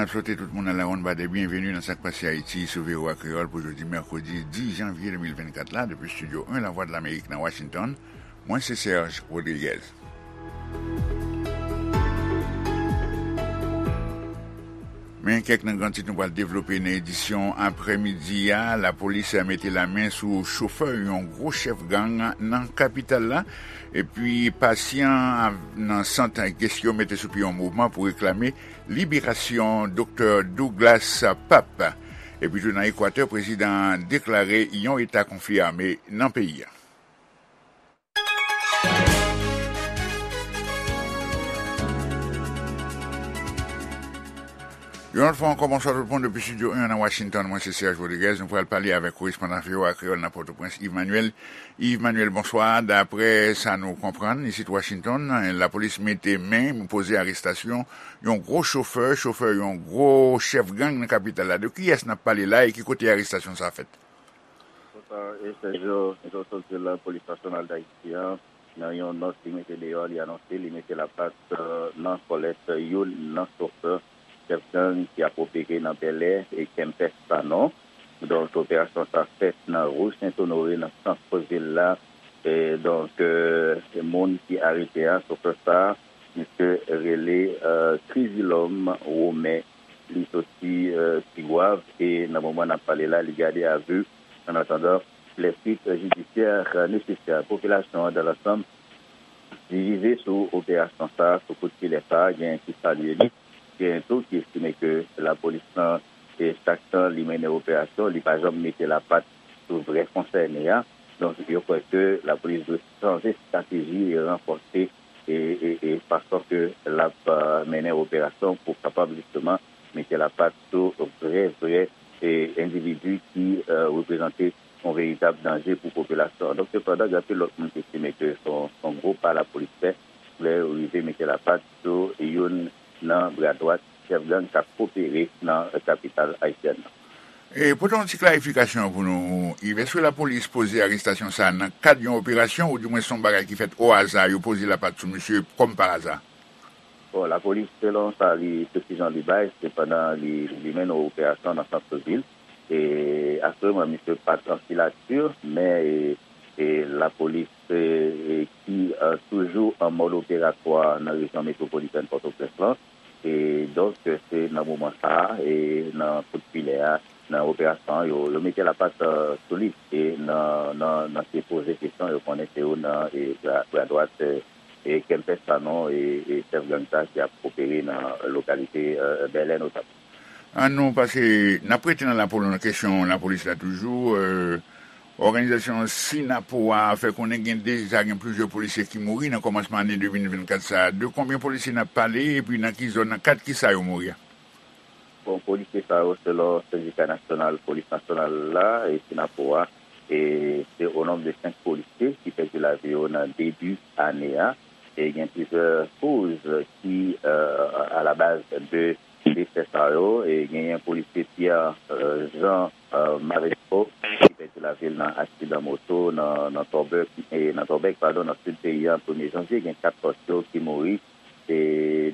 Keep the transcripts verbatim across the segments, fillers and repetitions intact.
N ap swete tout moun nan lawonn badè byenveni nan Sa k Pase Ayiti sou V O A Kreyòl pou jodi mèkredi dis janvye de mil vennkat la, depi Estidyo en Lavwadlamerik nan Washington. Mwen se Serge Rodriguez. Men kèk nan gran tit nou pral devlope nan edisyon aprèmidi a. Lapolis mete lamen sou chofè yon gwo chèf gang nan kapital la. Epi pasyan nan sant Gestyo mete sou pye yon mouvman pou reklame liberasyon Doktè Douglas Pape. Epi tou nan Ekwatè, prezidan an deklare yon eta konfli ame nan peyi a. Yon lòt fwa ankò, bonswa tout moun depi Estidyo en nan Washington. Mwen se Serge Rodriguez. Nou pral pale avèk korespondan V O A Kreyòl nan Pòtoprens, Yves Manuel. Yves Manuel, bonswa. Daprè sa nou konprann, isit Washington, lapolis mete men, poze arestasyon yon gwo chofè, chofè yon gwo chèf gang nan kapital la. De kiyès n ap pale la e ki kote arestasyon sa a fèt? Konsa, e Sergio, jan w sot di l la, Polis Nasyonal d Ayiti an, nan yon nòt li mete deyò, li anonse li mete lapat, eh, nan kòlèt youn nan chofè chèf gang ki ap opere nan Bèlè e Kempès Sanon. Donk, operasyon sa fèt nan Ri Sent Onore, nan sant vil la. E donk, eh, moun ki arete a, chofè sa, misye rele, eh, Krizilòm Women. Li soti, eh, Tigwav e nan moman n ap pale la, li gade a vi. An atandan, les suites judiciaires nécessaires. Popilasyon an, dans l'ensemble, divize sou operasyon sa, sou kout filè sa, gen ki salye li, gen tou ki estime ke lapolis lan, e chak tan li mennen operasyon, li pa janm mete lapat sou vrè konsène a. Donk, yo kwè ke lapolis dwe chanje estrateji e ranfòse e, e, e fason ke l ap, eh, mennen operasyon pou kapab jisteman mete lapat sou vrè, vrè, e, endividi ki, eh, reprezante yon veritab danje pou popilasyon an. Donk, sepandan, gen anpil lòt moun ki estime ke se yon, se yon gwo pa lapolis fè lè yo rive mete lapat sou youn nan bra dwat chèf gang k ap opere nan kapital ayisyèn nan. E, pote yon ti klarifikasyon pou nou, Yves. Èske lapolis poze arestasyon sa a nan kad yon operasyon, oudimwen se yon bagay ki fèt o aza, yo poze lapat sou misye kòm pa aza? Bon, lapolis, selon sa li, presiyon li bay, se pandan li, li mennen yon operasyon nan sant vil. E, asirèman, misye pa t an filati, men, e, e, lapolis, e, e, ki, e, toujou an mòd operatwa nan rejyon metwopolitèn Pòtoprens lan. E, donk, se nan moman sa a, e, nan kout filè a, nan operasyon an, yo, yo mete lapat, e, sou li. E nan, nan, nan se poze kesyon, yo konnen se yo nan, e, bra, bra dwat, e, e Kempès Sanon, e, e chèf gang sa ki ap opere nan lokalite, e, Bèlè notamman. An nou pase, n ap rete nan lapo-, nan kesyon lapolis la toujou. E, òganizasyon Sinapo a fè konnen gen deja gen plizyè polisye ki mouri nan kòmansman ane de mil vennkat sa a. De konbyen polisye n ap pale, epi nan ki zòn, nan kad ki sa yo mouri a? Bon, polisye sa yo, selon Sendika Nasyonal Polis Nasyonal la, e Sinapo a, e se o nonb de senk polisye ki pèdi lavi yo nan debi ane a. E gen plizyè koz ki, e, a la baz de desè sa yo. E genyen polisye Pierre, e, Jean, e, Maresco ki pèdi lavi l nan aksidan moto nan, nan Tòbèk, e, nan Tòbèk, padon, nan sid peyi a, premye janvye. Gen kat pòs yo ki mouri e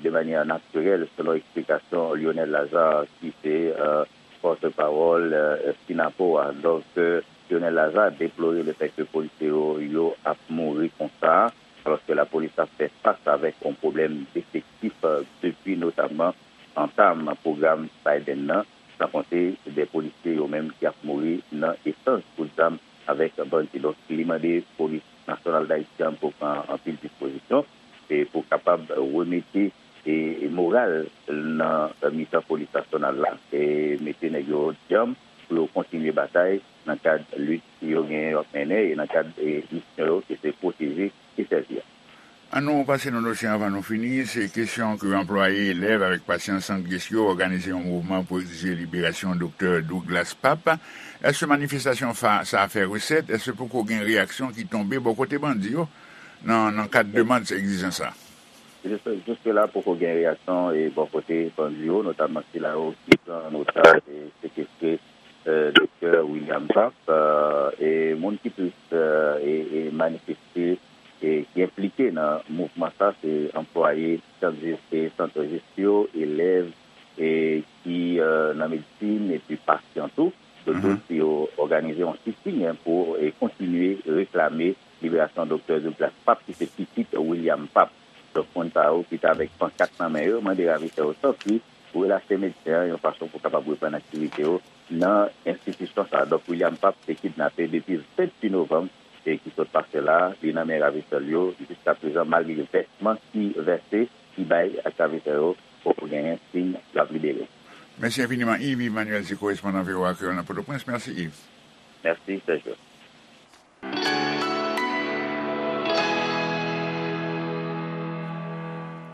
de manyè natirèl, selon eksplikasyon Lionel Lazarre, ki se, e, pòtpawòl, e, Sinapo a. Donk, e, Lionel Lazarre deplore lefètke polisye yo, yo ap mouri konsa, alòske lapolis ap fè fas avèk yon pwoblèm defektif, e, depi notamman antam pwogram Biden nan, san konte de polisye yo menm ki ap mouri nan echanj kout zam avèk bandi. Donk, li mande Polis Nasyonal d Ayiti an pou pran anpil dispozisyon e pou kapab remete, e, e moral nan mitan Polis Nasyonal la, e mete nèg yo djanm pou yo kontinye batay nan kad lit yo genyen yo ap mennen e nan kad, e, misyon yo ki se pwoteje e sèvi a. An nou pase nan dosye anvan nou fini. Se kesyon ke anplwaye, elèv avèk pasyan Sant Gestyo òganize yon mouvman pou egzije liberasyon Doktè Douglas Pape. Èske manifestasyon fa-, sa a fè resèt? Èske poko gen reyaksyon ki tonbe bò kote bandi yo nan, nan kad demann sa, egzijans sa? Jis-, jiske la, poko gen reyaksyon, e, bò kote bandi yo, notamman sila yo ki pran an otaj e sekestre, e, Doktè William Pape, e, e moun ki plis, e, e, e manifeste e ki enplike nan mouvman sa, se anplwaye sant Gestyo, elèv, e ki, e, nan medsin epi pasyan tou. Donk, mhm, yo òganize yon sit-in pou, e, kontinye reklame liberasyon Doktè Douglas Pape, ki se pitit William Pape. Donk, moun sa yo ki te avèk pankat nan men yo, mande ravitè yo tanpri pou relache medsen an yon fason pou kapab reprann aktivite yo nan enstitisyon sa a. Donk, William Pape te kidnape depi venntuit novanm, e ki sot pase la, li nan men ravitè l yo. Jiskaprezan, malgre vèsman ki vèse, ki bay ak ravitè yo, poko genyen siy l ap libere. Mèsi enfiniman, Yves Emmanuel, se korespondan V O A Kreyòl nan Pòtoprens. Mèsi, Yves. Mèsi, Sergio.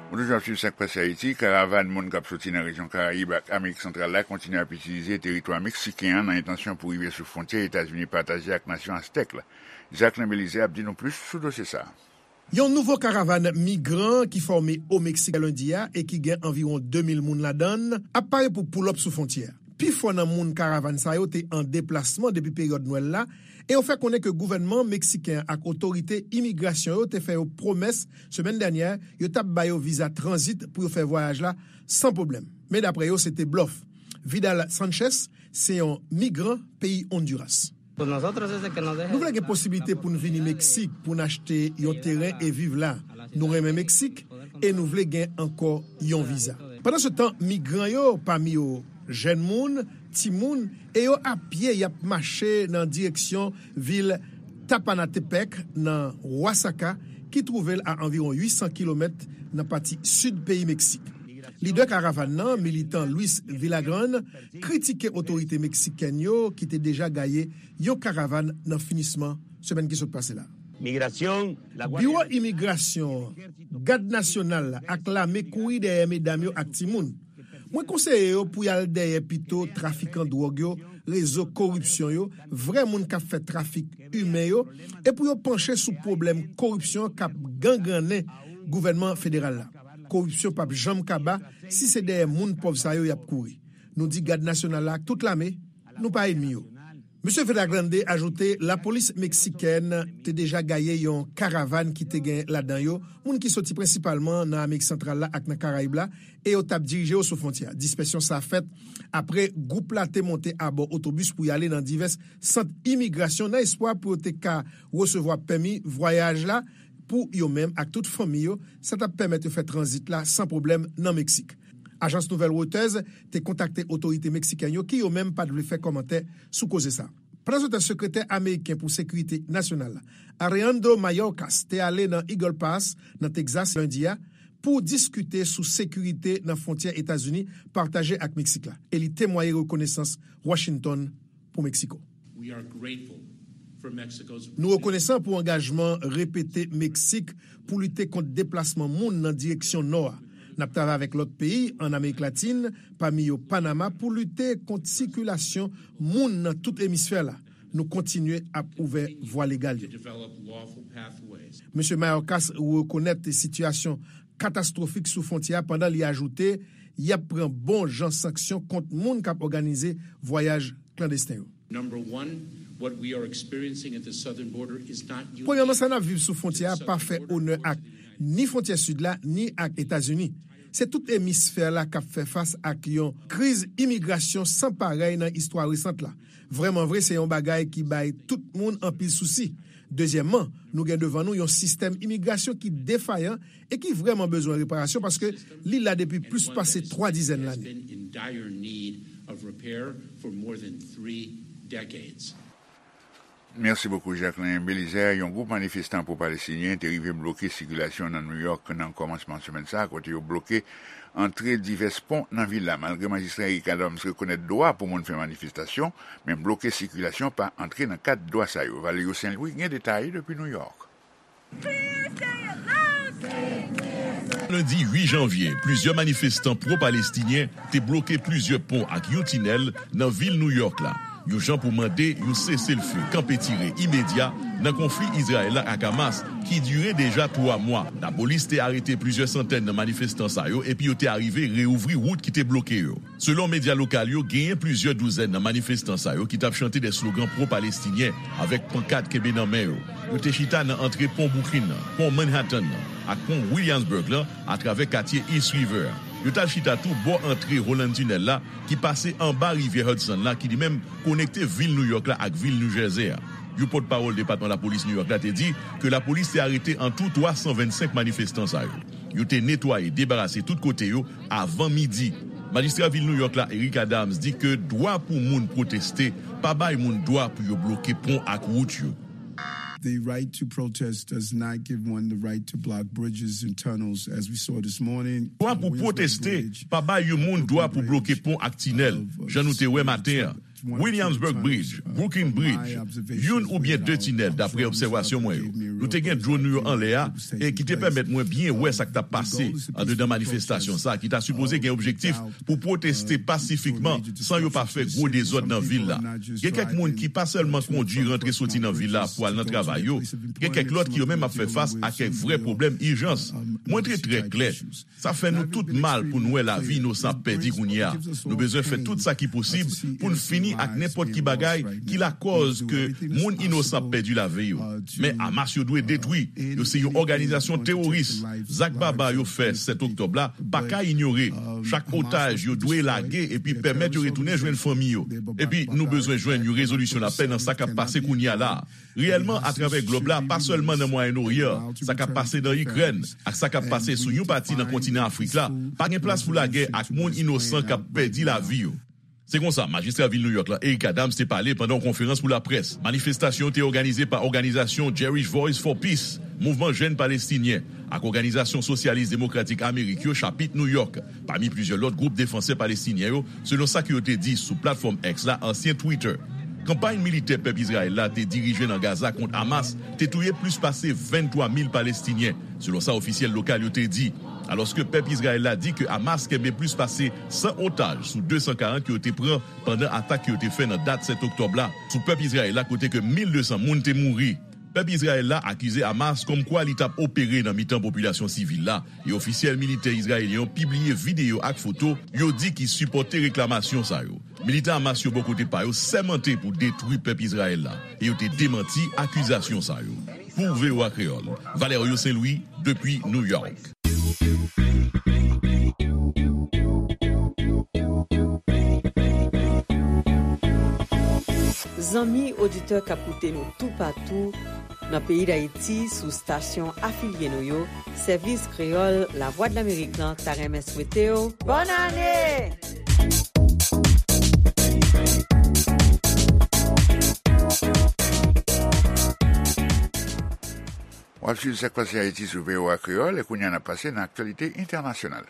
Ou toujou ap swiv Sa k Pase Ayiti. Karavàn moun k ap soti nan rejyon Karayib ak Amerik Santral la kontinye ap itilize teritwa meksiken an nan entansyon pou rive sou fwontyè Etazini pataje ak nasyon Aztèk la. Jacquelin Belizaire ap di nou plis sou dosye sa a. Yon nouvo karavàn migran ki fòme o Meksik lendi a e ki gen anviwon de mil moun ladan l ap pare pou pull up sou fwontyè a. Pifò nan moun karavàn sa yo te an deplasman depi peryòd Nwèl la, e yo fè konnen ke gouvènman meksiken an ak otorite imigrasyon yo te fè yo pwomès semèn dènyè yo t ap ba yo viza tranzit pou yo fè vwayaj la san pwoblèm. Men daprè yo, se te blòf. Vidal Sanchez se yon migran peyi Ondiras. Nou vle gen posiblite pou n vini Meksik, pou n achte yon teren e viv la. Nou renmen Meksik e nou vle gen ankò yon viza. Pandansetan, migran yo, pami yo jèn moun, timoun, e yo apye y ap mache nan direksyon vil Tapanatepec nan Oaxaca, ki twouve l a anviwon uit san kilomèt nan pati sid peyi Meksik. Lidè karavàn nan, militan Luis Villagrán, kritike otorite meksikèn yo ki te deja gaye yon karavàn nan finisman semèn ki sot pase la. Migrasyon, la Biwo Imigrasyon, Gad Nasyonal ak lame kouri dèyè medam yo ak timoun. Mwen konseye yo pou y al dèyè pito trafikan dwòg yo, rezo koripsyon yo, vrè moun k ap fè trafik imen yo, e pou yo panche sou pwoblèm koripsyon k ap gangrannen gouvènman federal la. Koripsyon p ap janm kaba si se dèyè moun pòv sa yo y ap kouri. Nou di Gad Nasyonal la ak tout lame, nou pa ènmi yo. Mesye Villagrande ajoute lapolis meksikèn te deja gaye yon karavàn ki te gen ladan yo moun ki soti prensipalman nan Amerik Santral la ak nan Karayib la, e yo t ap dirije yo sou fwontyè a. Dispèsyon sa a fèt apre gwoup la te monte abò otobis pou y ale nan divès sant imigrasyon nan espwa pou yo te ka resevwa pèmi vwayaj la pou yo menm ak tout fanmi yo. Sa t ap pèmèt yo fè tranzit la san pwoblèm nan Meksik. Ajans nouvèl Reuters te kontakte otorite meksikèn yo ki yo menm pa t vle fè kòmantè sou koze sa. Pandansetan, sekretè ameriken pou sekirite nasyonal la, Alejandro Mayorkas, te ale nan Eagle Pass, nan Texas, lendi a, pou diskite sou sekirite nan fwontyè Etazini pataje ak Meksik la, e li temwaye rekonesans Washington pou Meksiko. We are grateful for Mexico's Nou rekonesan pou angajman repete Meksik pou lite kont deplasman moun nan direksyon nò a. N ap travay avèk lòt peyi ann Amerik Latin, pami yo Panama, pou lite kont sikilasyon moun nan tout emisfè la. Nou kontinye ap ouvè vwa legal yo. Mesye Mayorkas rekonèt sitiyasyon katastwofik sou fwontyè a pandan li ajoute, y ap pran bon jan sanksyon kont moun k ap òganize vwayaj klandesten yo. Number one, what we are experiencing at the southern border is not unique. Premyèman, sa n ap viv sou fwontyè a pa fè onè ak ni fwontyè sid la, ni ak Etazini. Se tout emisfè la k ap fè fas ak yon kriz imigrasyon san parèy nan istwa resant la. Vrèman vre, se yon bagay ki bay tout moun anpil sousi. Dezyèmman, nou gen devan nou yon sistèm imigrasyon ki defayan e ki vrèman bezwen reparasyon paske li la depi plis pase twa dizèn lane. Mèsi bokou, Jacquelin Belizaire. Yon gwoup manifestan pwo-palestinyen te rive bloke sikilasyon nan New York nan kòmansman semèn sa a, kote yo bloke antre divès pon nan vil la. Malgre majistra Eric Adams rekonèt dwa pou moun fè manifestasyon, men bloke sikilasyon pa antre nan kad dwa sa yo. Valerio Saint-Louis gen detay depi New York. Lendi uit janvye, plizyè manifestan pwo-palestinyen te bloke plizyè pon ak yon tinèl nan vil New York la, yon jan pou mande yon seselfe kanpe tire imedya nan konfli Izrayèl la ak Hamas ki dire deja twa mwa. Lapolis te arete plizyè santèn nan manifestan sa yo epi yo te arive reouvri wout ki te bloke yo. Selon medya lokal yo, genyen plizyè douzèn nan manifestan sa yo ki t ap chante de slogan pwo-palestinyen avèk pankat kenbe nan men yo. Yo te chita nan antre pon Brooklyn nan, pon Manhattan nan, ak pon Williamsburg lan atravè katye East River a. Yo t al chita tou bò antre Holland Tunnel la, ki pase anba rivyè Hudson la, ki li menm konekte vil New York la ak vil New Jersey a. Yon pòtpawòl Depatman Lapolis New York la te di ke lapolis te arete antou twa san vennsenk manifestan sa yo. Yo te netwaye, debarase tout kote yo avan midi. Majistra vil New York la, Eric Adams, di ke dwa pou moun pwoteste pa bay moun dwa pou yo bloke pon ak wout yo. The right to protest does not give one the right to block bridges and tunnels, as we saw this morning. Dwa pou pwoteste pa bay yon moun dwa pou bloke pon ak tinèl, jan nou te wè maten an. Williamsburg Bridge, Brooklyn Bridge, youn oubyen de tinèl, dapre obsèvasyon mwen yo. Nou te gen dwòn nou yo anlè a, e ki te pèmèt mwen byen wè sa k t ap pase andedan manifestasyon sa a, ki ta sipoze gen objektif pou pwoteste pasifikman san yo pa fè gwo dezòd nan vil la. Gen kèk moun ki pa sèlman kondui rantre soti nan vil la pou al nan travay yo, gen kèk lòt ki yo menm ap fè fas a kèk vrè pwoblèm ijans. Mwen te trè klè, sa fè nou tout mal pou n wè lavi inosan ap pèdi kounye a. Nou bezwen fè tout sa ki posib pou n fini ak nenpòt ki bagay ki lakòz ke moun inosan ap pèdi lavi yo. Men Hamas yo dwe detwi. Yo se yon òganizasyon teworis. Zak baba yo fè sèt oktòb la pa ka inyore. Chak otaj yo dwe lage epi pèmèt yo retounen jwenn fanmi yo. Epi nou bezwen jwenn yon rezolisyon lapè nan sa k ap pase kounye a la a. Reyèlman, atravè glòb la, pa sèlman nan Mwayen Oryan, sa k ap pase nan Ikrèn ak sa k ap pase sou yon pati nan kontinan Afrik la, pa gen plas pou lagè ak moun inosan k ap pèdi lavi yo. Se konsa, majistra vil New York la, Eric Adams, te pale pandan yon konferans pou laprès. Manifestasyon te òganize pa òganizasyon Jewish Voice for Peace, Mouvman Jèn Palestinyen, ak Òganizasyon Sosyalis Demokratik Amerik yo, chapit New York, pami plizyè lòt gwoup defansè palestinyen yo, selon sa ke yo te di sou platfòm X la, ansyen Twitter. Kanpay militè pèp Izrayèl la te dirije nan Gaza kont Hamas te touye plis pase venntwa mil Palestinyen, selon sa ofisyèl lokal yo te di. Alòske pèp Izrayèl la di ke Hamas kenbe plis pase san otaj sou de san karant ke yo te pran pandan atak ke yo te fè nan dat sèt oktòb la sou pèp Izrayèl la, kote ke mil de san moun te mouri. Pèp Izrayèl la akize Hamas kòmkwa li t ap opere nan mitan popilasyon sivil la, e ofisyèl militè izrayelyen yo pibliye videyo ak foto yo di ki sipòte reklamasyon sa yo. Militan Hamas yo bò kote pa yo sèmante pou detwi pèp Izrayèl la, e yo te demanti akizasyon sa yo. Pou V O A Kreyòl, Valerio Saint-Louis, depi New York. Zanmi oditè k ap koute nou toupatou nan peyi Dayiti sou stasyon afilye nou yo, Sèvis Kreyòl Lavwadlamerik lan ta renmen swete w bòn ane! W ap swiv sa k pase Ayiti sou V O A Kreyòl, e kounye a n ap pase nan aktyalite entènasyonal.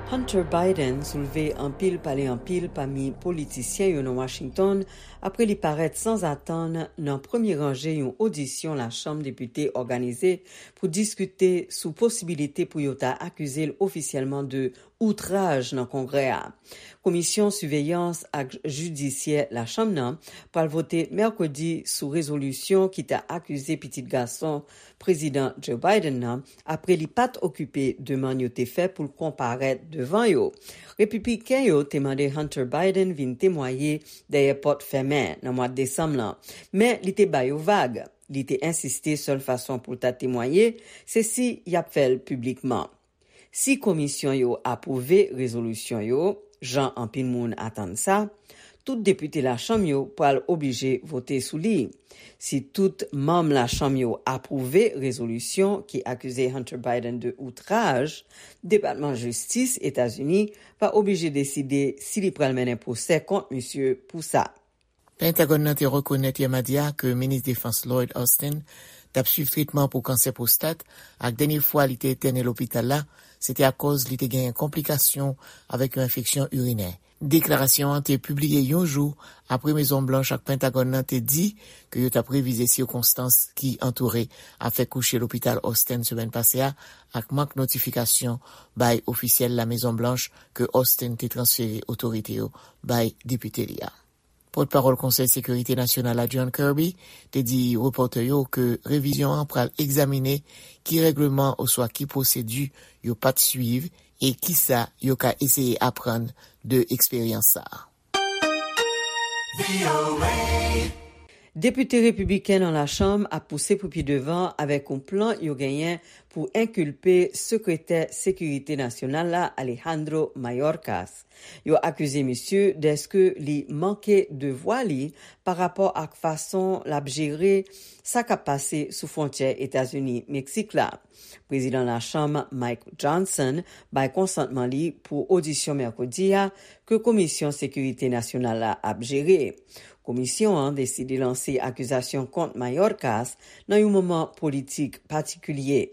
Hunter Biden soulve anpil pale anpil pami politisyen yo nan Washington apre li parèt sanzatann nan premye ranje yon odisyon Lachanm Depite òganize pou diskite sou posibilite pou yo ta akize l ofisyèlman de outraj nan Kongrè a. Komisyon Siveyans ak Jidisyè Lachanm nan pral vote mèkredi sou rezolisyon ki ta akize pitit gason Prezidan Joe Biden nan apre li pa t okipe demann yo te fè pou l konparèt devan yo. Repibliken yo te mande Hunter Biden vin temwaye dèyè pòt fèmen nan mwa desanm lan, men li te ba yo vag. Li te ensiste sèl fason pou l ta temwaye se si y ap fè l piblikman. Si komisyon yo apwouve rezolisyon yo, jan anpil moun atann sa, tout depite Lachanm yo pral oblije vote sou li. Si tout manm Lachanm yo apwouve rezolisyon ki akize Hunter Biden de outraj, Depatman Jistis Etazini va oblije deside si li pral mennen pwosè kont misye pou sa. Pentagòn nan te rekonèt yè madi a ke minis defans Lloyd Austin t ap swiv tretman pou kansè pwostat, ak dènye fwa li te entène lopital la, se te akòz li te genyen konplikasyon avèk yon enfeksyon irinè. Deklarasyon an te pibliye yon jou apre Mezon Blanch ak Pentagòn nan te di ke yo t ap revize sikonstans ki antoure afè kouche lopital Austin semèn pase a, ak mank notifikasyon bay ofisyèl La Mezon Blanch ke Austin te transfere otorite yo bay depite li a. Pòtpawòl Konsèy Sekirite Nasyonal la, John Kirby, te di repòtè yo ke revizyon an pral egzamine ki règleman oswa ki pwosedi yo pa t swiv e kisa yo ka eseye aprann de eksperyans sa a. Depite repibliken nan Lachanm ap pouse pou pi devan avèk yon plan yo genyen pou enkilpe Sekretè Sekirite Nasyonal la, Alejandro Mayorkas. Yo akize misye dèske li manke devwa li pa rapò ak fason l ap jere sa k ap pase sou fwontyè Etazini-Meksik la. Prezidan Lachanm Mike Johnson bay konsantman li pou odisyon mèkredi a ke Komisyon Sekirite Nasyonal la ap jere. Komisyon an deside lanse akizasyon kont Mayorkas nan yon moman politik patikilye.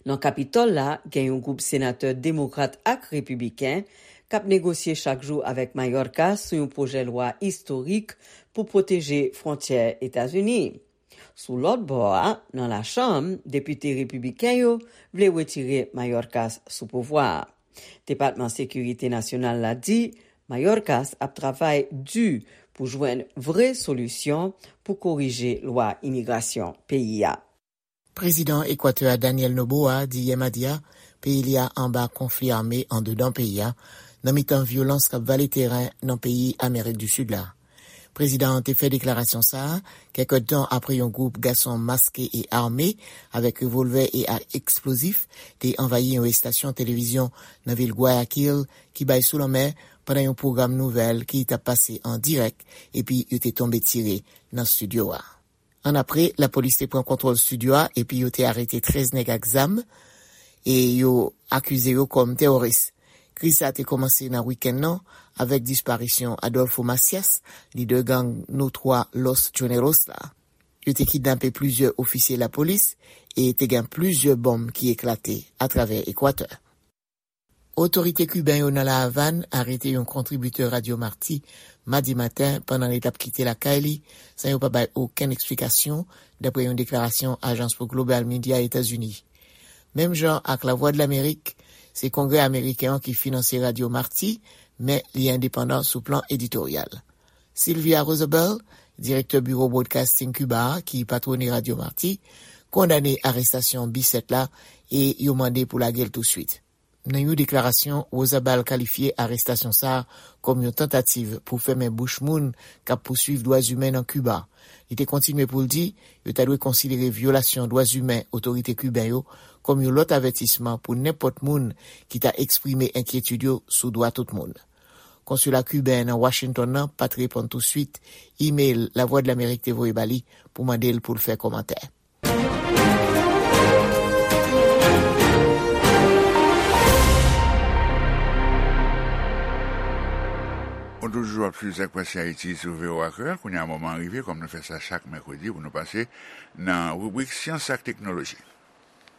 Nan Kapitòl la, gen yon gwoup senatè demokrat ak repibliken k ap negosye chak jou avèk Mayorkas sou yon pwojè lwa istorik pou pwoteje fwontyè Etazini. Sou lòt bò a, nan Lachanm, depite repibliken yo vle retire Mayorkas sou pouvwa a. Depatman Sekirite Nasyonal la di Mayorkas ap travay di pou jwenn vre solisyon pou korije lwa imigrasyon peyi a. Prezidan Ekwatè a, Daniel Noboa, di yè madi a peyi li a anba konfli ame andedan peyi a, nan mitan vyolans k ap vale teren nan peyi Amerik di Sid la. Prezidan an te fè deklarasyon sa a kèk èdtan apre yon gwoup gason maske e ame avèk revòlvè e ak eksplozif te anvayi yon estasyon televizyon nan vil Guayaquil ki bay sou lanmè pandan yon pwogram nouvèl ki t ap pase an dirèk, epi yo te tonbe tire nan estidyo a. Annapre, lapolis te pran kontwòl estidyo a epi yo te arete trèz nèg ak zam e yo akize yo kòm teworis. Kriz sa a te kòmanse nan wikenn nan avèk disparisyon Adolfo Macias, lidè gang notwa Los Choneros la. Yo te kidnape plizyè ofisye lapolis e te gen plizyè bonm ki eklate atravè Ekwatè. Otorite kiben yo nan La Avàn arete yon kontribitè Radyo Marti madi maten pandan li t ap kite lakay li san yo pa bay okenn eksplikasyon, dapre yon deklarasyon Ajans pou Global Media Etazini. Menm jan ak Lavwadlamerik, se Kongrè ameriken an ki finanse Radyo Marti, men li endepandan sou plan editoryal. Sylvia Rosabelle, direktè biwo Broadcasting Cuba a, ki patwone Radyo Marti, kondane arestasyon Bissett la e yo mande pou lage l touswit. Nan yon deklarasyon, Rosabelle kalifye arestasyon sa a kòm yon tantativ pou fèmen bouch moun k ap pouswiv dwa imen nan Kiba. Li te kontinye pou l di, yo ta dwe konsidere vyolasyon dwa imen otorite kiben yo kòm yon lòt avètisman pou nenpòt moun ki ta eksprime enkyetid yo sou dwa tout moun. Konsila kiben nan Washington nan pa t reponn touswit imèl Lavwadlamerik te voye ba li pou mande l pou l fè kòmantè. Ou toujou ap swiv Sak Pase Ayiti sou V O A Kreyòl. Kounye a, moman an rive, kòm nou fè sa chak mèkredi, pou nou pase nan ribrik Syans ak Teknoloji.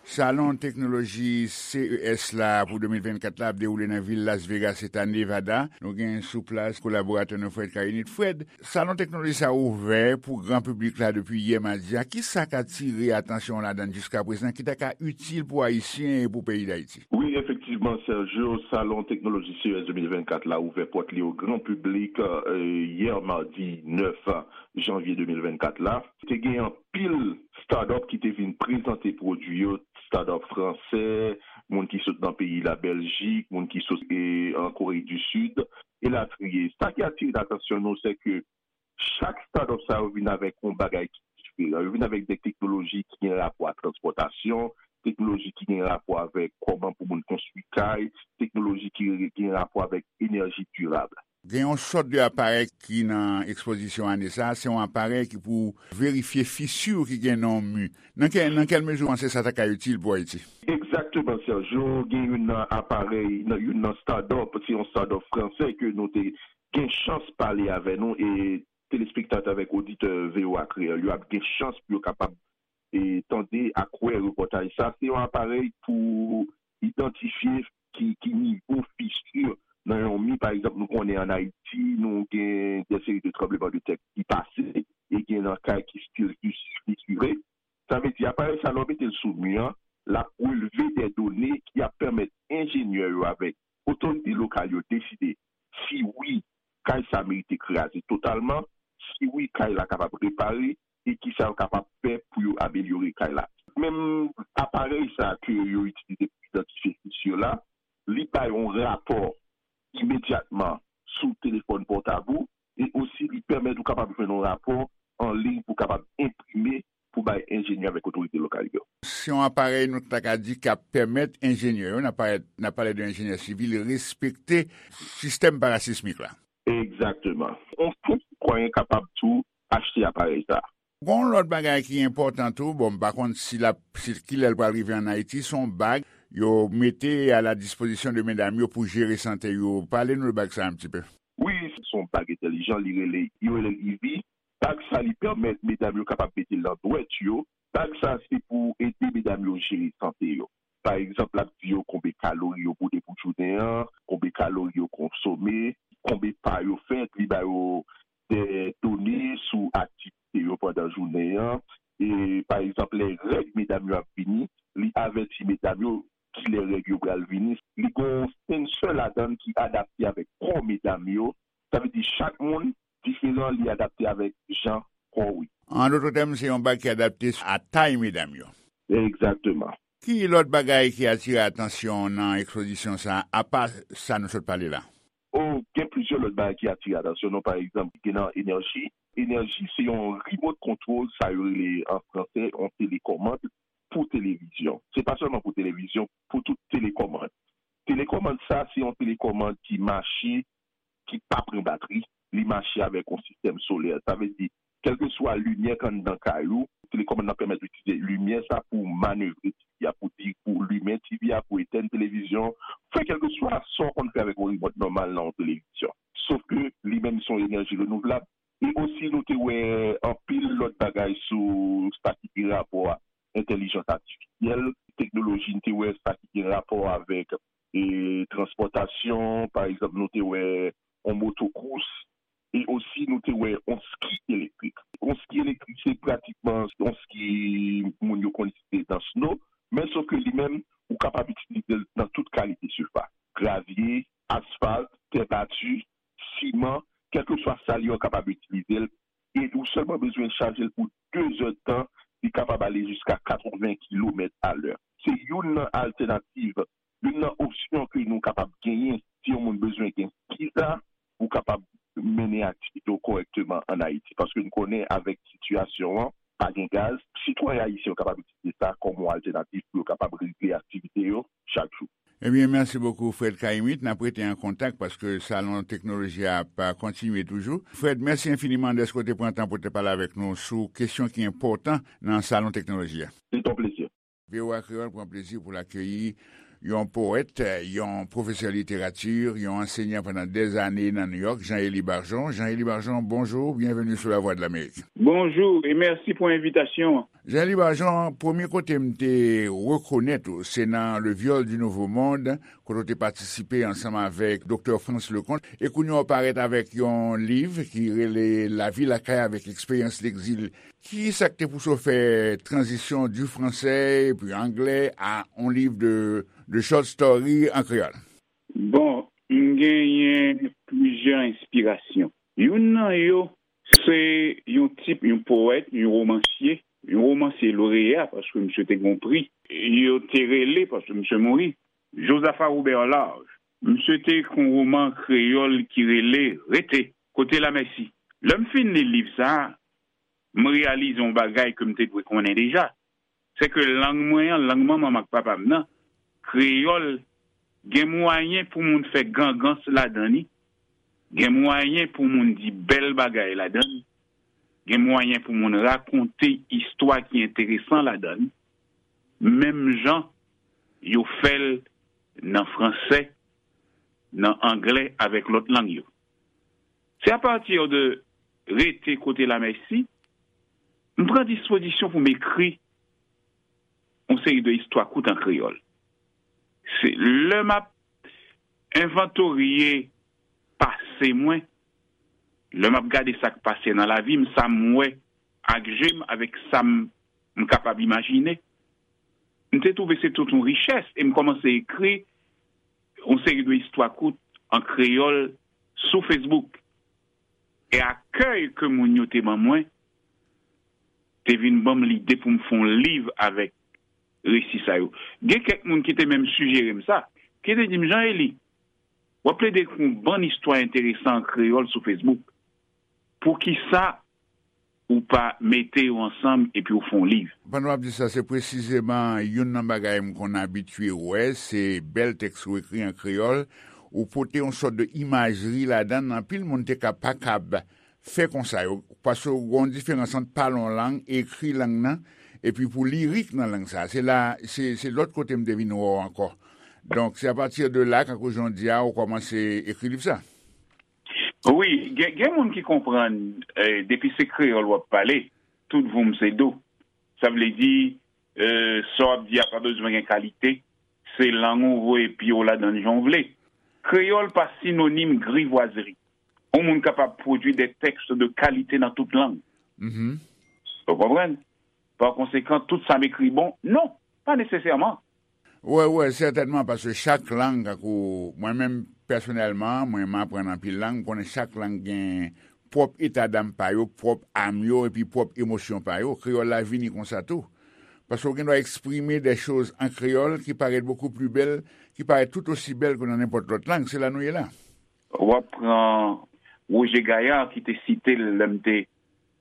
Salon teknoloji C E S la pou de mil vennkat la ap dewoule nan vil Las Vegas, eta Nevada. Nou gen sou plas kolaboratè nou Fred Karinit. Fred, salon teknoloji sa ouvè pou gran piblik la depi yè madi a. Kisa k atire atansyon w ladan l jiskaprezan ki ta ka itil pou Ayisyen e pou peyi Dayiti? Wi, efektivman, Sergio, salon teknoloji C E S de mil vennkat la ouvè pòt li o gran piblik, euh, yè madi nèf janvye de mil vennkat la. Te gen anpil start-up ki te vin prezante pwodui yo, start-up fransè, moun ki sot nan peyi Labèljik, moun ki sot, e, an Kore di Sid, elatriye. Sa ki atire atansyon nou, se ke chak start-up sa yo vin avèk yon bagay ki diferan. Yo vin avèk de teknoloji ki gen rapò ak transpòtasyon, teknoloji ki gen rapò avèk kòman pou moun konstwi kay, teknoloji ki gen rapò avèk enèji dirab. Gen yon sòt de aparèy ki nan ekspozisyon ane sa a, se yon aparèy ki pou verifye fisi ki gen nan yon mi. Nan kè, nan kèl mezi w panse sa ta ka itil pou Ayiti? Egzakteman, Sergio, gen youn nan aparèy, nan, youn nan start-up, se yon start-up fransè ke nou te gen chans pale avè nou, e telespektatè avèk oditè V O A Kreyòl yo ap gen chans pou yo kapab, e, tande ak wè repòtaj sa. Se yon aparèy pou idantifye ki, ki nivo fisi nan yon mi. Pa egzanp, nou konnen ann Ayiti, nou gen de seri de tranbleman de tè ki pase, e gen nan kay ki still fisire. Sa vle di, aparèy sa, lè w mete l sou mi an, l ap relve de done ki ap pèmèt enjenyè yo avèk otorite lokal yo deside si wi, kay sa merite kraze totalman, si wi, kay la kapab repare, e kisa yo kapab fè pou yo amelyore kay la. Menm aparèy sa ke yo itilize pou idantifye fisi yo la, li bay yon rapò imedyatman sou telefòn pòtab ou, e osi li pèmèt ou kapab jwenn yon rapò an liy pou w kapab enprime pou bay enjenyè avèk otorite lokal yo. Se yon aparèy nou ta ka di k ap pèmèt enjenyè yo, n ap pale, n ap pale de enjenyè sivil, respekte sistèm parasismik la. Egzakteman. Yon senp sitwayen kapab tou achte aparèy sa a. Gon lòt bagay ki enpòtan tou, bon, m pa konn si l ap, si, kilè l pral rive ann Ayiti, se yon bag yo mete a la dispozisyon de medam yo pou jere sante yo. Pale nou de bag sa a yon ti pe. Wi, se yon bag entèlijan, li rele, yo rele l Eevee. Bag sa li pèmèt medam yo kapab mete l nan dwèt yo. Bag sa se pou ede medam yo jere sante yo. Pa egzanp, l ap di yo konbe kalori yo boude pou jounen an, konbe kalori yo konsome, konbe pa yo fè, li ba yo de done sou aktivite yo pandan jounen an. E, pa egzanp, lè règ medam yo ap vini, li avèti medam yo kilè règ yo pral vini. Li gen yon sensè ladan l ki adapte avèk kò medam yo. Sa vle di chak moun diferan, li adapte avèk jan kò w ye. An dòt tèm, se yon bag ki adapte a tay medam yo. Egzakteman. Ki lòt bagay ki atire atansyon w nan ekspozisyon sa a, apa sa nou sot pale la? O, gen plizyè lòt bagay ki atire atansyon nou. Pa egzanp, gen nan enèji. Enèji se yon remote control, sa yo rele an franse yon telekòmand pou televizyon. Se pa sèlman pou televizyon, pou tout telekòmand. Telekòmand sa, se yon telekòmand ki mache, ki pa pran batri, li mache avèk yon sistèm solè. Sa vle di, kèlkeswa limyè k anndan kay ou, telekòmand nan pèmèt ou itilize limyè sa pou manevre T V a, pou di, pou limen T V a, pou etèn televizyon, fè kèlkeswa sa w konn fè avèk yon remote nòmal nan yon televizyon. Sof ke li menm se yon enèji renouvlab. E osi nou te wè anpil lòt bagay sou sa ki gen rapò a entèlijans atifisyèl, teknoloji, nou te wè sa ki gen rapò avèk, e, transpòtasyon, pa egzanp, nou te wè yon motokous, e osi nou te wè yon ski elektrik. Yon ski elektrik, se pratikman yon ski moun yo konn itilize nan sno, men sof ke li menm, ou kapab itilize l nan tout kalite sifas. Gravye, asfalt, tè bati, siman, kèlkeswa sa l ye, w kapab itilize l, e ou sèlman bezwen chaje l pou de zè tan, li kapab ale jiska katreven kilomèt a lè. Se youn nan altènativ, youn nan opsyon ke nou kapab genyen si yon moun bezwen gen ski sa, pou kapab mennen aktivite w kòrèkteman ann Ayiti. Paske n konnen avèk sitiyasyon an, pa gen gaz, sitwayen ayisyen yo kapab itilize sa kòm yon altènativ pou yo kapab regle aktivite yo chak jou. Ebyen, mèsi bokou, Fred Caïmite. N ap rete an kontak paske Salon Teknoloji a ap kontinye toujou. Fred, mèsi enfiniman dèske w te pran tan pou w te pale avèk nou sou kesyon ki enpòtan nan Salon Teknoloji a. Se yon plezi. V O A Kreyòl pran plezi pou l akeyi yon powèt, yon pwofesè literati, yon ansenyan pandan dèzane nan Nouyòk, Jean Élie Bargeon. Jean Élie Bargeon, bonjou, byenveni sou Lavwadlamerik. Bonjou e mèsi pou envitasyon an. Jean Élie Bargeon, premye kote m te rekonèt ou, se nan Le Viol du Nouveau Monde, kote w te patisipe ansanm avèk Doktè Frantz Leconte, e kounye a w parèt avèk yon liv ki rele Lavi lakay avèk eksperyans legzil. Ki sa k te pouse w fè tranzisyon du français epi anglè a yon liv de, de short story an kreyòl? Bon, m genyen plizyè enspirasyon. Youn nan yo, se yon tip, yon powèt, yon womansye, yon womansye loreya, paske misye te gen yon pri. Yo te rele, paske misye mouri, Josaphat Robert Large. Misye te ekri yon woman kreyòl ki rele Rete, kote Lamèsi. Lè m fin li liv sa a, m reyalize yon bagay ke m te dwe konnen deja. Se ke lang mwen an, lang manman m ak papa m nan, kreyòl, gen mwayen pou moun fè gangans ladan li, gen mwayen pou moun di bèl bagay ladan li, gen mwayen pou moun rakonte istwa ki enteresan ladan li, menm jan yo fè l nan fransè, nan anglè, avèk lòt lang yo. Se apati de Rete, kote Lamèsi, m pran dispozisyon pou m ekri yon seri de istwa kout an kreyòl. Se lè m ap envantorye pase mwen, lè m ap gade sa k pase nan lavi m, sa m wè ak je m, avèk sa m, m kapab imajine, m te twouve se tout yon richès e m kòmanse ekri yon seri de istwa kout an kreyòl sou Facebook. E akèy ke moun yo te ban mwen te vin ban m lide pou m fè yon liv avèk resi sa yo. Gen kèk moun ki te menm sijere m sa. ki te di m, "Jean Élie, w ap plede ekri yon bann istwa enteresan an kreyòl sou Facebook. Poukisa ou pa mete yo ansanm epi w fè yon liv?" Pandan w ap di sa, se presizeman youn nan bagay m konn abitye wè, se bèl tèks ou ekri an kreyòl, ou pote yon sòt de imajri ladan l, anpil moun te ka pa kab fè konsa yo, paske w gen yon diferans ant pale yon lang, ekri lang nan, epi pou lirik nan lang sa. Se la, se, se lòt kote m te vin wè w ankò. Donk, se apati de la, kankou jan w di a, ou kòmanse ekri liv sa. Wi, gen, gen moun ki konprann, eh, depi se kreyòl w ap pale, tout voum se do. Sa vle di, eh, sa w ap di a pa bezwen gen kalite, se lang ou voye pye w ladan l jan w vle. Kreyòl pa sinonim grivwazri. Yon moun kapab pwodui de tèks de kalite nan tout lang. Mhm. Ou konprann? Pa konsekan, tout sa m ekri bon? Non, pa nesesèman. Wè, wè, sètènman, paske chak lang, tankou mwen menm pèsonèlman, mwen m aprann anpil lang, m konnen chak lang gen pwòp etadam pa yo, pwòp am yo, epi pwòp emosyon pa yo. Kreyòl la vini konsa tou. Paske w gen dwa eksprime de choz an kreyòl ki parèt beaucoup plus belle, ki parèt tout osi bèl ke nan nenpòt lòt lang. Se la nou ye la. W ap pran Roger Gayard ki te site l lè m te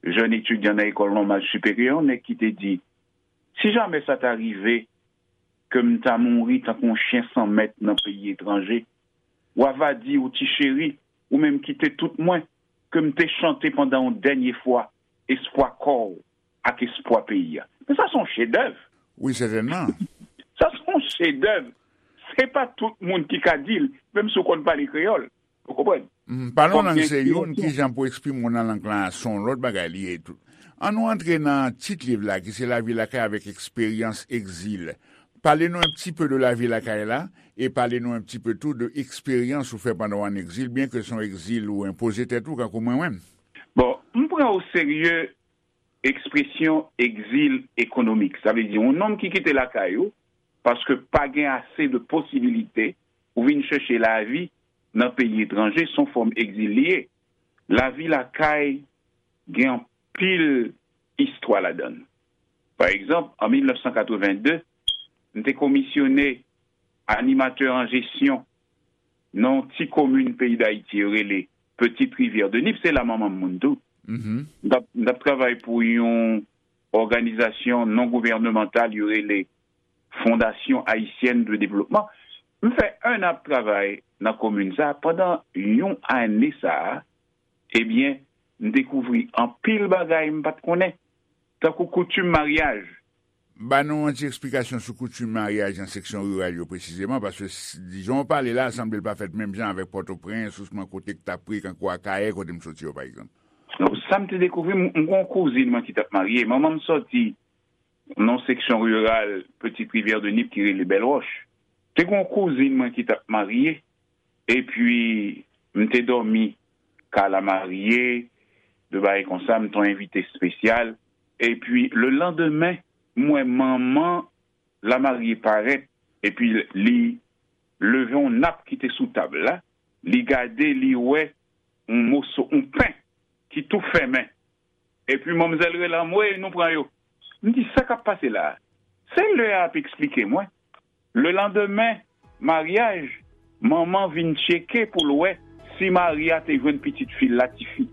jèn etidyan nan ekòl nòmal siperyè, yon nèg ki te di, "Si jamè sa ta rive ke m ta mouri tankou yon chen san mèt nan peyi etranje, w ava di ou ti cheri, ou menm kite tout mwen, ke m te chante pandan yon dènye fwa espwa kò w ak espwa peyi a." Men sa se yon chedèv. Wi, sètènman. Sa se yon chedèv. Se pa tout moun ki ka di l, menm si w konn pale kreyòl. Ou konprann? Mm, pale yon lang se youn, ki jan pou eksprime w nan lang lan, se yon lòt bagay li ye tou. An nou antre nan tit liv la, ki se Lavi lakay avèk eksperyans egzil. Pale nou un petit peu de lavi lakay la, e pale nou un petit peu tou de eksperyans ou fè pandan w an egzil, byen ke se yon egzil ou enpoze tèt ou, kankou mwen menm. Bon, m pran o serye ekspresyon egzil ekonomik. Sa vle di, yon nonm ki kite lakay ou, paske pa gen ase de posibilite, ou vin chèche lavi nan peyi etranje, se yon fòm egzil li ye. Lavi lakay gen anpil istwa ladan l. Pa egzanp, an mil nèf san katreven de, m te komisyone animatè an jesyon nan yon ti komin peyi Dayiti yo rele Petite Rivière de Nip, se la manman m moun tou. Mhm. M t ap, m t ap travay pou yon òganizasyon non gouvènemantal yo rele Fondation Haïtienne de Développement. M fè en an ap travay nan komin sa. Pandan yon ane sa a, ebyen, m dekouvri anpil bagay m pa t konnen, tankou koutim maryaj. Ba nou yon ti eksplikasyon sou koutim maryaj nan seksyon riral yo presizeman, paske s-, di jan w pale la, sanble l pa fèt menm jan avèk Pòtoprens, osnon kote k t ap pre, kankou Akayè, kote m soti yo, pa egzanp. Donk, sa m te dekouvri, m, m gen yon kouzin mwen ki t ap marye. Manman m sòti nan seksyon riral Petite Rivière de Nip ki rele Bèl Wòch. Te gen yon kouzin mwen ki t ap marye, epi m te dòmi kay lamarye, de bagay konsa, m te yon envite espesyal. Epi, le landemen, m wè manman lamarye parèt, epi li leve yon nap ki te sou tab la, li gade, li wè yon moso, yon pen ki tou fèmen. Epi manmzèl rele anmwe, nou pran yo. M di, "Sa k ap pase la a?" Se lè a ap eksplike mwen. Le landemen maryaj, manman vin tcheke pou l wè si mari a te jwenn pitit fi l la, tifi.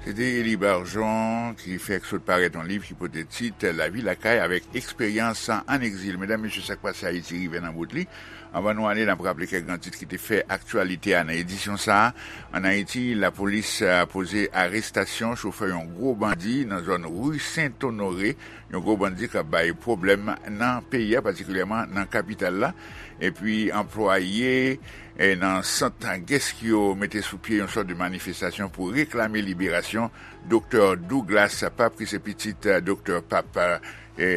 Se te Élie Barjon ki fèk sot parèt yon liv ki pote tit Lavi lakay avèk eksperyans an egzil. Medam, mesye, sa k pase Ayiti rive nan bout li. Anvan nou ale, n ap raple kèk gran tit ki te fè aktyalite a nan edisyon sa a. Ann Ayiti, lapolis, a, poze arestasyon chofè yon gwo bandi nan zòn ri Sent Onore, yon gwo bandi k ap bay pwoblèm nan peyi a, patikilyèman nan kapital la. Epi, anplwaye, e, nan sant Geskyo mete sou pye yon sòt de manifestasyon pou reklame liberasyon Doktè Douglas Pape, ki se pitit, e, Doktè Pape, e,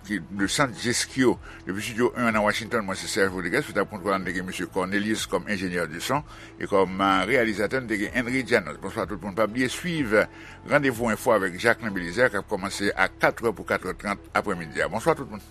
ki, de Sant Geskyo. Depi Estidyo en nan Washington, mwen se Serge Rodriguez, sou tab kontwòl la, nou te gen mesye Cornelius kòm enjenyè de son, e kòm, e, reyalizatè, nou te gen Henry Janos. Bonswa tout moun. Pa bliye swiv Randevou Enfo avèk Jacquelin Belizaire, k ap kòmanse a katrè pou katrè trant aprèmidi a. Bonswa tout moun.